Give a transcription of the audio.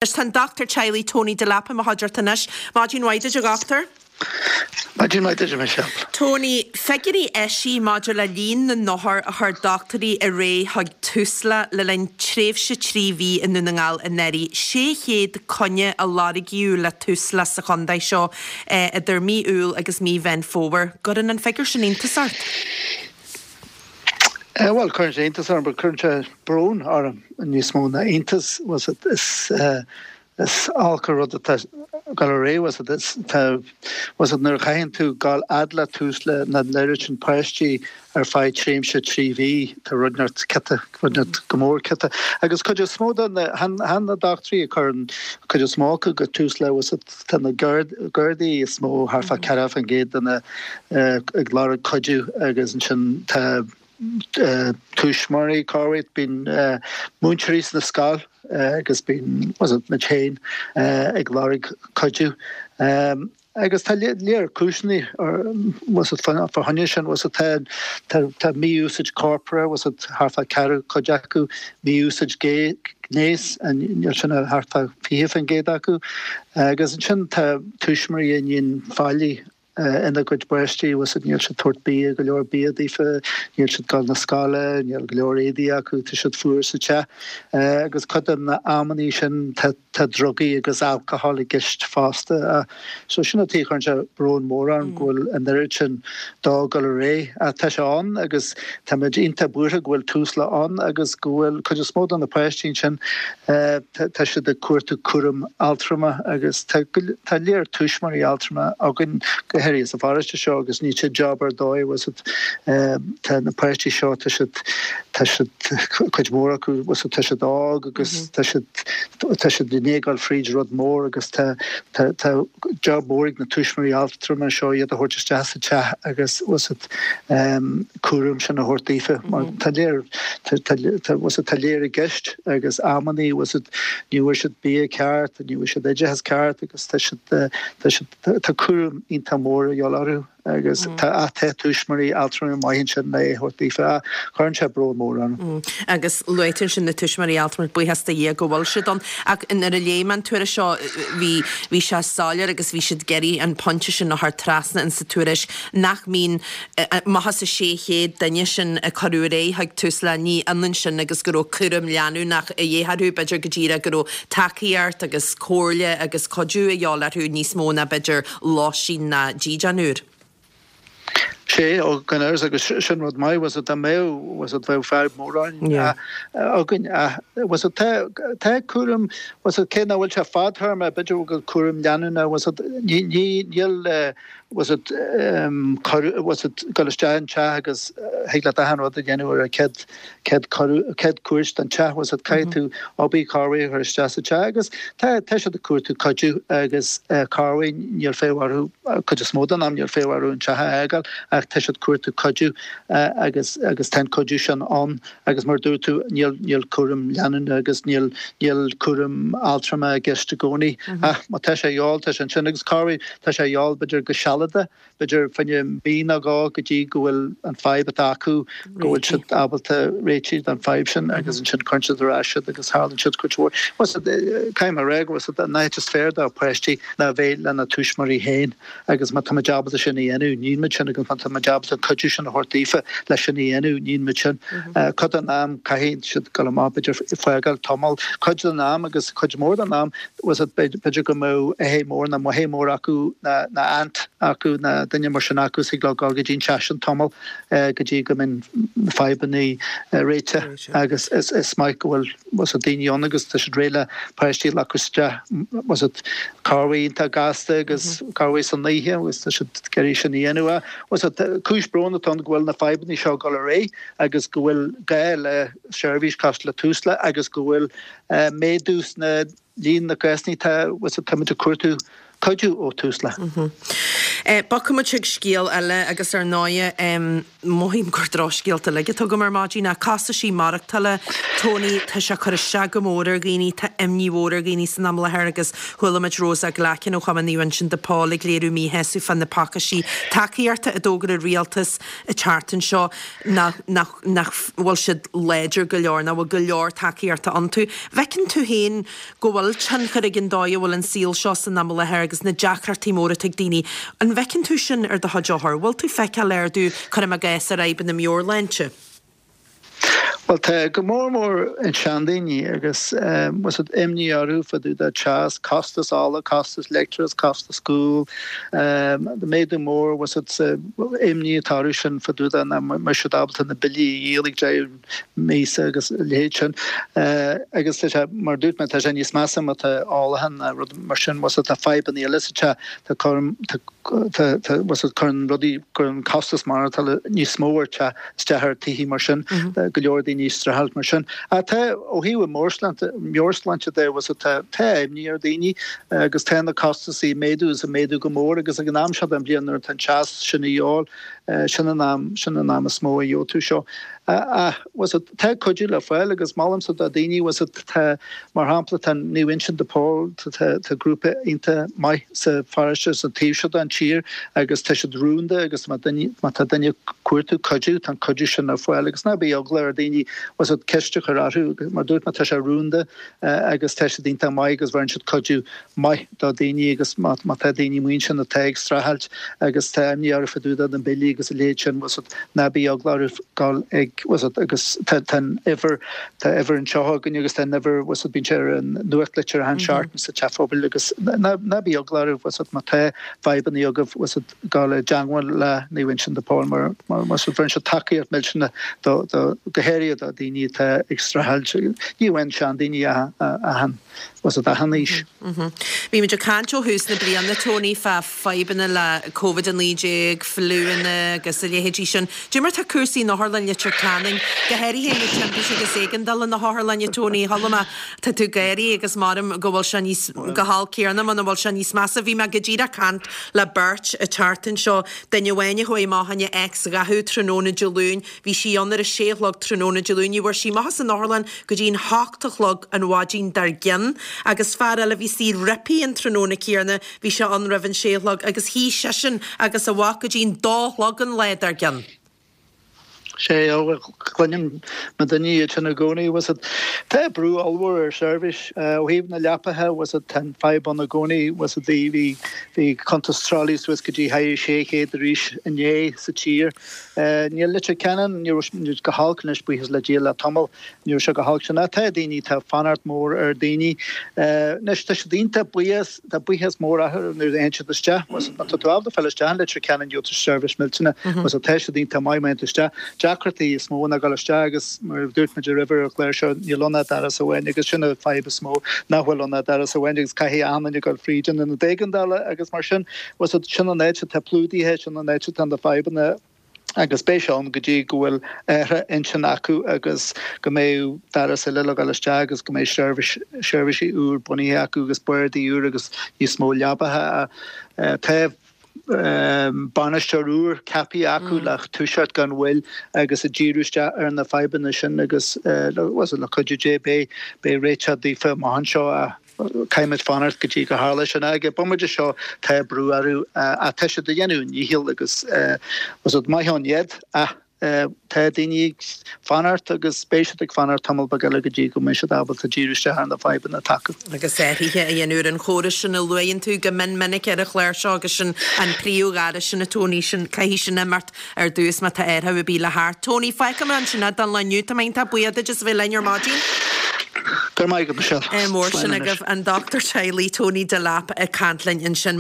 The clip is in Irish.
Tá an Dochtúir Teaghlaigh Tony Delap i mo chuideachta anois. Maidin mhaith duit a dhochtúir. Maidin mhaith duit a Michelle. Tony, figiúirí eisithe maidir le líon na n-othar a chuir dochtúirí ar aghaidh chuig Tusla le linn tréimhse 3 mhí i nDún na nGall anuraidh. 600 coinne a lorgaíodh le Tusla sa chontae seo idir mí Iúil agus mí Mheán Fómhair. Gcuireann an figiúr sin iontas ort? Bhuel, cuireann sé iontas orm, but cuireann sé brón orm níos mó ná iontas. Bhfuil 's a'd, is, is olc an rud atá ag dul ar aghaidh, bhfuil 's a'd, is, tá, bhfuil 's a'd, nuair a chaitheann tú gabháil fhad le Tusla na n-oiread sin páistí ar feadh tréimhse 3 mhí, tá rud inteacht ciotach, rud inteacht go mór ciotach. Agus cuid is mó de na, chan, chan na dochtúirí a chuireann cuid is mó acu go Tusla, bhfuil 's a'd, Tá na Gardaí is mó, thart fá 40% de na ag lorg cuidiú agus ansin tá tuismitheoirí, corruair, bíonn múinteoirí sna scoil agus bíonn muid féin ag lorg cuidiú. Agus tá léar cúiseanna fá choinne sin, tá mí-úsáid corpartha, thart fá ceathrú cuid acu, mí-úsáid gnéis, níl sin ach thart fá 20% acu. Agus ansin tá tuismitheoirí a níonn faillí ina gcuid bpáistí, bhfuil 's a'd, níl siad tabhairt bia, go leor bia daofa, níl siad dul na scoile, níl go leor éadaí acu, tá siad fuar sa teach. Agus cuid de na amannaí sin tá tá drugaí agus alcohol i gceist fosta. So sin an tuige a chuireann sé brón mór orm go bhfuil an oiread sin dó ag dul ar aghaidh. Ach tá sé ann agus táimid iontach buartha go bhfuil Tusla ann agus go bhfuil cuid is mó de na páistí ansin, tá siad ag cuartú cúram altrama agus tá tá léar tuismitheoirí altrama againn, go háirithe sa pharóiste seo agus níl sé job ar dóigh, bhfuil 's a'd, tá na páistí seo, tá siad, tá siad, cuid mhór acu, bhfuil 's a'd, tá siad óg agus tá siad, tá siad i ndiaidh dul fríd rud mór agus tá, tá, tá job mór ag na tuismitheoirí altrama seo iad a thabhairt isteach sa teach agus, bhfuil 's a'd, cúram sin a thabhairt daofa mar tá léar, tá, tá, tá, bhfuil 's a'd, tá léar i gceist agus amannaí, bhfuil 's a'd, ní bhfuair siad bia ceart, ní bhfuair siad oideachas ceart agus tá siad, tá siad, tá cúram iontach mór a dhíobháil orthu. Agus tá tá tuismitheoirí altrama maith ansin le é a thabhairt daofa. Cuireann sé brón mór orm. Agus luaigh tú ansin na tuismitheoirí altrama, buíochas do Dhia go bhfuil siad ann. Ach nuair a léigh mé an tuairisc seo, bhí, bhí sé soiléir agus bhí siad ag iarraidh an pointe sin a chur trasna in sa tuairisc nach mbíonn, amach as an 600 duine sin a cuireadh ar aghaidh chuig Tusla, ní ionann sin agus go raibh cúram leanúnach a dhíth orthu, b'fhéidir go díreach go raibh tacaíocht agus comhairle agus cuidiú a dhíobháil orthu níos mó ná b'fhéidir lóistín ná dídean úr. Sea, ó, gan amhras, agus sin rud maith, bhfuil 's a'd, dá mbeadh, bhfuil 's a'd, bheadh fadhb mór againn, ach, bhfuil 's a'd, tá, tá cúram, bhfuil 's a'd, cé nach bhfuil sé fadtéarma, b'fhéidir go bhfuil cúram leanúnach, bhfuil 's a'd, ní, ní, níl, bhfuil 's a'd, bhfuil 's a'd, dul isteach an teach agus thig leat achan rud a dhéanamh ar an chéad, chéad chéad cuairt don teach, bhfuil 's a'd, caithfidh tú obair corruair a chur isteach sa teach agus tá tá siad ag cuartú cuidiú agus corruair níl fonn orthu, cuid is mó den am níl fonn orthu an teach a fhágáil ach tá siad ag cuartú cuidiú agus agus tá an cuidiú sin ann agus mar a dúirt tú níl níl cúram leanúnach agus níl níl cúram altrama i gceist i gcónaí ach má tá sé a dhíobháil tá sé ansin agus corruair tá sé a dhíobháil b'fhéidir go sealadach b'fhéidir fá choinne mí nó dhó go dtí go bhfuil an fadhb atá acu, go bhfuil siad ábalta réitigh don fadhb sin agus ansin cuireann siad ar ais iad agus tharlaíonn siad cuid mhór. Bhfuil 's a'd, caithfidh mé a rá go bhfuil 's a'd, an áit is fearr do pháistí ná bheith lena tuismitheoirí féin agus má tá muid ábalta sin a dhéanamh, níonn muid sin agus má tá muid ábalta an cuidiú sin a thabhairt daofa leis sin a dhéanamh, níonn muid sin. Cuid den am caithfidh siad dul amach b'fhéidir fágáil tamall, cuid den am agus cuid mhór den am, bhfuil 's a'd, b'fhéidir go mbeadh athair mór nó máthair mór acu nó aunt acu nó duine mar sin acu is thig leo dul go dtí an teach sin tamall go dtí go mbíonn na fadhbanna réitithe agus is maith go bhfuil bhfuil 's a'd daoine ann agus tá siad réidh le páistí a ghlacadh isteach bhfuil 's a'd corruair iontach gasta agus corruair san oíche agus tá siad ag iarraidh sin a dhéanamh. Bhfuil 's a'd cúis bróin atá ann go bhfuil na fadhbanna seo ag dul ar aghaidh agus go bhfuil gá le seirbhís cosúil le Tusla agus go bhfuil méadú sna líon na gcásanna tá, bhfuil 's a'd, táimid ag cuartú. Cuidiú ó Tusla. Bogfaidh muid chuig scéal eile agus ar ndóighe mothaím gur drochscéalta uilig atá agam ar maidin ach costaisí maireachtála Tony tá sé ag cur isteach go mór ar dhaoine, tá imní mhór ar dhaoine san am i láthair agus chuala muid Rosa Glackin ó Chumann Naomh Uinseann de Pól ag léiriú míshásamh fá na pacáistí tacaíochta a d'fhógair an rialtas an tseachtain seo nach nach nach bhfuil siad láidir go leor, nach bhfuil go leor tacaíochta iontu. Bhfeiceann tú féin go bhfuil tionchar ag an dóigh a bhfuil an saol seo san am i láthair agus na deacrachtaí móra atá ag daoine. An bhfeiceann tú sin ar do chuid othar? Bhfuil tú feiceáil ardú, cuirim i gcás, ar fhadhbanna meabhairshláinte? Bhuel, tá, go mór mór an seandaoine agus bhfuil fhios a'd, imní orthu fá dtaobh de teas, costas ola, costas leictreachas, costas guail, méadú mór, bhfuil fhios a'd, sa imní atá orthu sin fá dtaobh de nach mbeidh siad ábalta na billí a dhíol ag deireadh míosa agus a leithéid sin. Agus tá sé, mar a dúirt mé, tá sé níos measa má tá ólachán ná rud mar sin, bhfuil fhios a'd, tá fadhbanna eile sa teach, tá cúram, tá, tá, tá, bhfuil fhios a'd, cuireann rudaí, cuireann costas maireachtála níos mó ar teach, isteach ar tithe mar sin, tá go leor daoine ag streachailt mar sin. Ach tá, ó thaobh an mheabhairshláinte, meabhairshláinte de, bhfuil fhios a'd, tá, tá imní ar dhaoine agus tá na costasaí ag méadú is ag méadú go mór agus ag an am seo den bhliain nuair atá an teas sin a dhíobháil, Sin an am, sin an am is mó a gheobhaidh tú seo. Ach, bhfuil fhios a'd, tá cuidiú le fáil agus molaimse do daoine, bhfuil fhios a'd, tá, mar shampla, tá Naomh Uinseann de Pól, tá, tá grúpa iontach maith sa pharóiste, sa taobh seo den tír agus tá siad rúnda agus má duine, má tá duine ag cuartú cuidiú, tá an cuidiú sin ar fáil agus ná bíodh eagla ar daoine, bhfuil fhios a'd, ceist a chur orthu, mar dúirt mé, tá sé rúnda agus tá siad iontach maith agus bheireann siad cuidiú maith do daoine agus má tá daoine amuigh ansin atá ag streachailt agus tá imní orthu fá dtaobh de na billí agus a leithéid sin, bhfuil fhios a'd, ná bíodh eagla orthu dul ag, bhfuil fhios a'd, agus tá tá an uimhir, tá uimhir anseo againn agus tá an uimhir, bhfuil fhios a'd, bíonn sé ar an nuachtlitir achan seachtain sa teach phobail agus ná ná bíodh eagla orthu, bhfuil fhios a'd, má tá fadhbanna agaibh, bhfuil fhios a'd, dul i dteangmháil le Naomh Uinseann de Pól mar mar bhfuil fhios a'd, bheireann siad tacaíocht millteanach do do go háirithe do daoine atá ag streachailt, ní amháin seandaoine ach achan. Bhfuil fhios a'd, achan aois. Bhí muid ag caint ó thús na bliana, Tony, fá fadhbanna le Covid-19, fliúanna agus a leithéidí sin. Cad é mar tá cúrsaí in Otharlann Leitir Ceanainn, go háirithe na timpiste agus éigeandála na hotharlainne, Tony? Chuala mé, tá tú ag gáirí agus maram go bhfuil sé níos, go holc céanna muna bhfuil sé níos measa. Bhí mé go díreach ag caint le beirt an tseachtain seo, duine amháin a chuaigh amach fá choinne X-ghathú tráthnóna Dé Luain, Bhí sí ann ar a sé a chlog tráthnóna Dé Luain. Ní bhfuair sí amach as an otharlann go dtí an hocht a chlog an mhaidin dár gcionn. Agus fear eile a bhí istigh roimpi an tráthnóna céanna, bhí sé ann roimh an sé a chlog agus shuigh seisean agus a mhac go dtí an dó a chlog an lá dár gcionn. Sé, ó, cluinim na daoine iad sin i gcónaí, bhfuil fhios a'd. Tá brú ollmhór ar seirbhís ó thaobh na leapacha, bhfuil fhios a'd, tá an fadhb ann i gcónaí, bhfuil fhios a'd, bhí, bhí cuntas tralaí suas go dtí 600 arís inné sa tír. Níl Leitir Ceanainn, ní raibh sé go holc anois, buíochas le Dia le tamall, ní raibh sé go holc sin. Ach tá daoine, tá fanacht mór ar daoine. Anois tá siad iontach buíoch, tá buíochas mór acu nuair a théann siad isteach. Má tá tú ábalta fáil isteach in Leitir Ceanainn gheobhaidh tú seirbhís millteanach. Bhfuil fhios a'd, tá siad iontach maith má théann tú isteach. Deacrachtaí is mó ná dul isteach agus mar a dúirt muid roimhe ar an chlár seo, níl ann ach doras amháin agus sin an fadhb is mó, nach bhfuil ann ach doras amháin agus caithfidh achan duine dul fríd an ionad éigeandála agus mar sin. Bhfuil fhios a'd, sin an áit atá plódaithe, sin an áit atá na fadhbanna agus beidh sé ann go dtí go bhfuil athrú intinn acu agus go mbeidh doras eile le dhul isteach agus go mbeidh seirbhís, seirbhísí úr bunaithe acu agus bardaí úr agus níos mó leabacha. Tá bainisteoir úr ceaptha acu le toiseacht gan mhoill agus ag díriú isteach ar na fadhbanna sin agus bhfuil fhios a'd, le cuidiú Dé beidh, beidh réiteach daofa amach anseo. Caithfimid fanacht go dtí go tharla sin. Ag an bomaite seo tá brú orthu ach tá siad ag déanamh a ndícheall agus bhfuil fhios a'd, maith ann iad ach tá daoine ag fanacht agus beidh siad ag fanacht tamall beag eile go dtí go mbeidh siad ábalta díriú isteach ar na fadhbanna atá acu. Agus athruithe a dhéanamh ar an chóras sin a luaigheann tú go mion minic ar an chlár seo agus sin an príomhdhoras sin a Tony, sin, caithfidh sin imeacht ar dtús má tá athrú ar bith le theacht. Tony, fágfaidh mé ansin é don lá inniu. Tá mé iontach buíoch duit as a bheith linn ar maidin. Go raibh maith agat, Michelle. Ádh mór sin agaibh. An Dochtúir Teaghlaigh Tony Delap ag caint linn ansin.